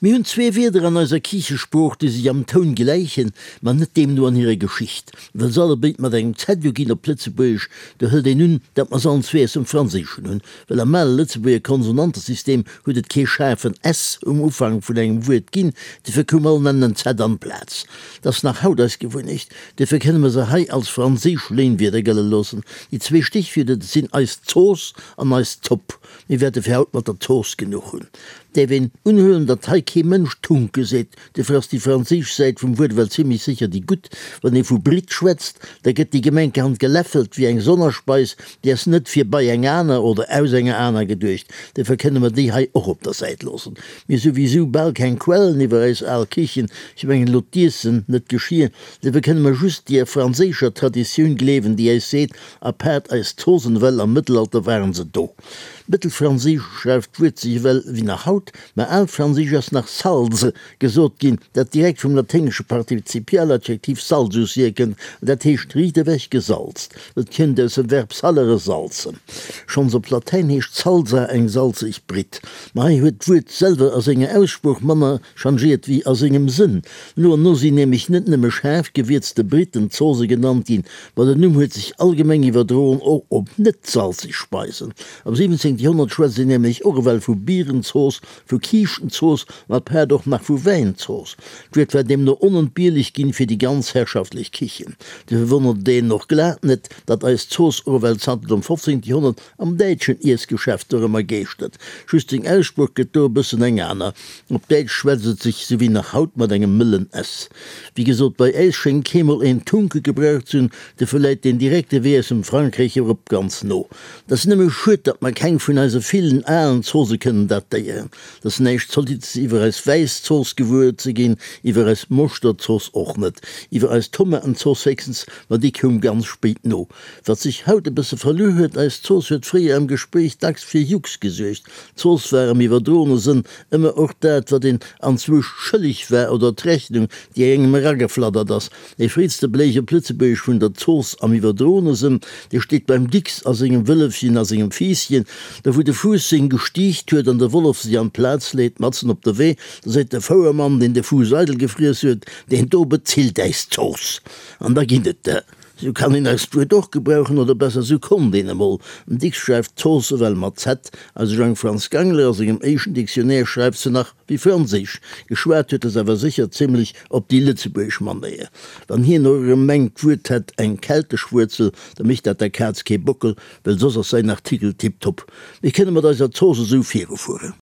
Mir hunn zwee Wierder an eiser Kichesprooch, déi sech am Toun gläichen, ma net deemno an hirer Geschicht. Well se allebéid mat engem Z uginn op Lëtzebuergesch, do hëlt een un, datt mer se allen zwee aus dem Franséischen hunn, well am ale Lëtzebuerger Konsonantesystem huet et kee schaarfen S um Ufank vun engem Wuert ginn, dofir koum all N en Z an d'Plaz. Dat ass nach haut eis Gewunnecht, dofir kënne mer se hei als franséisch Léinwierder gëlle loossen. Déi zwee Stichwierder, dat sinn eis Zooss an eis Zopp. Mir wäerte fir haut mat der Zooss genuch hunn. Däerf een unhuelen, datt hei kee Mënsch Tunke seet, dofir ass déi franséisch Säit vum Wuert ewell zimlech sécher déi gutt. Wann ee vu Britt schwätzt, da gëtt déi gemenkerhand geläffelt wéi eng Sonnerspeis, déi ass net fir bei eng aner oder aus enger aner geduecht. Dofir kënne mer déi hei och op der Säit loossen. Mir hu souwisou bal keng Quellen iwwer eis al Kichen, ech mengen elo d'Iessen, net d'Geschir, dofir kënne mer just deer franséischer Traditioun gleewen, déi äis seet, Apaart eis Zosen ewell am Mëttelalter waren se do. Mëttelfranséisch schreift d'Wuert sech ewell wéi nach haut, mä alfranséisch ass nach salse gesot ginn, dat direkt vum laténgesche Partizipialadjektiv salsus hierkënnt, an dat heescht riicht ewech gesalzt. Et kënnt aus dem Verb salere salzen. Schonns op Latäin heescht salsa eng salzeg Britt. Mä hei huet d'Wuert selwer a senger Aussprooch manner changéiert wéi a sengem Sënn. No an no sinn nämlech net nëmme schaarf gewierzte Britten Zose genannt ginn, ma den Numm huet sech allgemeng iwwerdroen och op net salzeg Speisen. Am 17. Joerhonnert schwätzt een nämlech och ewell vu Bierenzooss, vu Kiischtenzooss an apaart och nach vu Wäinzooss. D'Wuert war deemno onentbierlech ginn fir déi ganz herrschaftlech Kichen. Dofir wonnert et een och glat net, datt eis Zooss och ewell zanter dem 15. Joerhonnert Am däitschen Iessgeschäft dorëmmer geeschtert. Just seng Aussprooch gëtt do e bëssen eng aner. Op Däitsch schwätzt et sech sou wéi nach haut mat engem mëllen s. Wéi gesot, bei äis schéngt keemol een Tunke gebraucht ze hunn, dofir läit deen direkte Wee aus dem Frankräich erop ganz no. Et ass nëmme schued, datt mer keng vun eise villen alen Zose kënnen datéieren. Et ass näischt Zolittes iwwer eis wäiss Zooss gewuer ze ginn, iwwer eis Moschterzooss och net, iwwer eis Tomatenzooss héchstens, ma déi koum ganz spéit no. Wat sech haut e bësse verluer huet, eis Zooss huet fréier am Gespréich dacks fir Jux gesuergt. D'Zooss war am iwwerdroene Sënn ëmmer och dat, wat een anzwousch schëlleg war oder d'Rechnung, déi engem erageflattert ass. Dee fréiste Beléeg op Lëtzebuergesch vun der Zooss am iwwerdroene Sënn, dee steet beim Dicks a sengem Wëllefchen a sengem Fiisschen, do wou de Fuuss seng gestiicht huet an de Wollef sech an d'Plaz leet, matzen op de Wee, da seet de Fouermann, deen de Fuuss eidel gefriess huet, Deen do bezilt äis d'Zooss! An da ginn et der. Sou kann een eist Wuert och gebrauchen, oder besser, sou konnt een emol. Den Dicks schreift Zooss ewell mat Z, eise Jang Franz Gangler a sengem éischten Dictionnaire schreift se nach wéi franséisch geschwat huet, ass awer sécher zimlech op déi lëtzebuergesch Manéier. Wann hien och erëm mengt, d'Wuert hätt eng keltesch Wuerzel, da mécht dat der Kaz kee Bockel, well soss ass säin Artikel tiptop. Mir kënne mat eiser Zooss esou virufueren.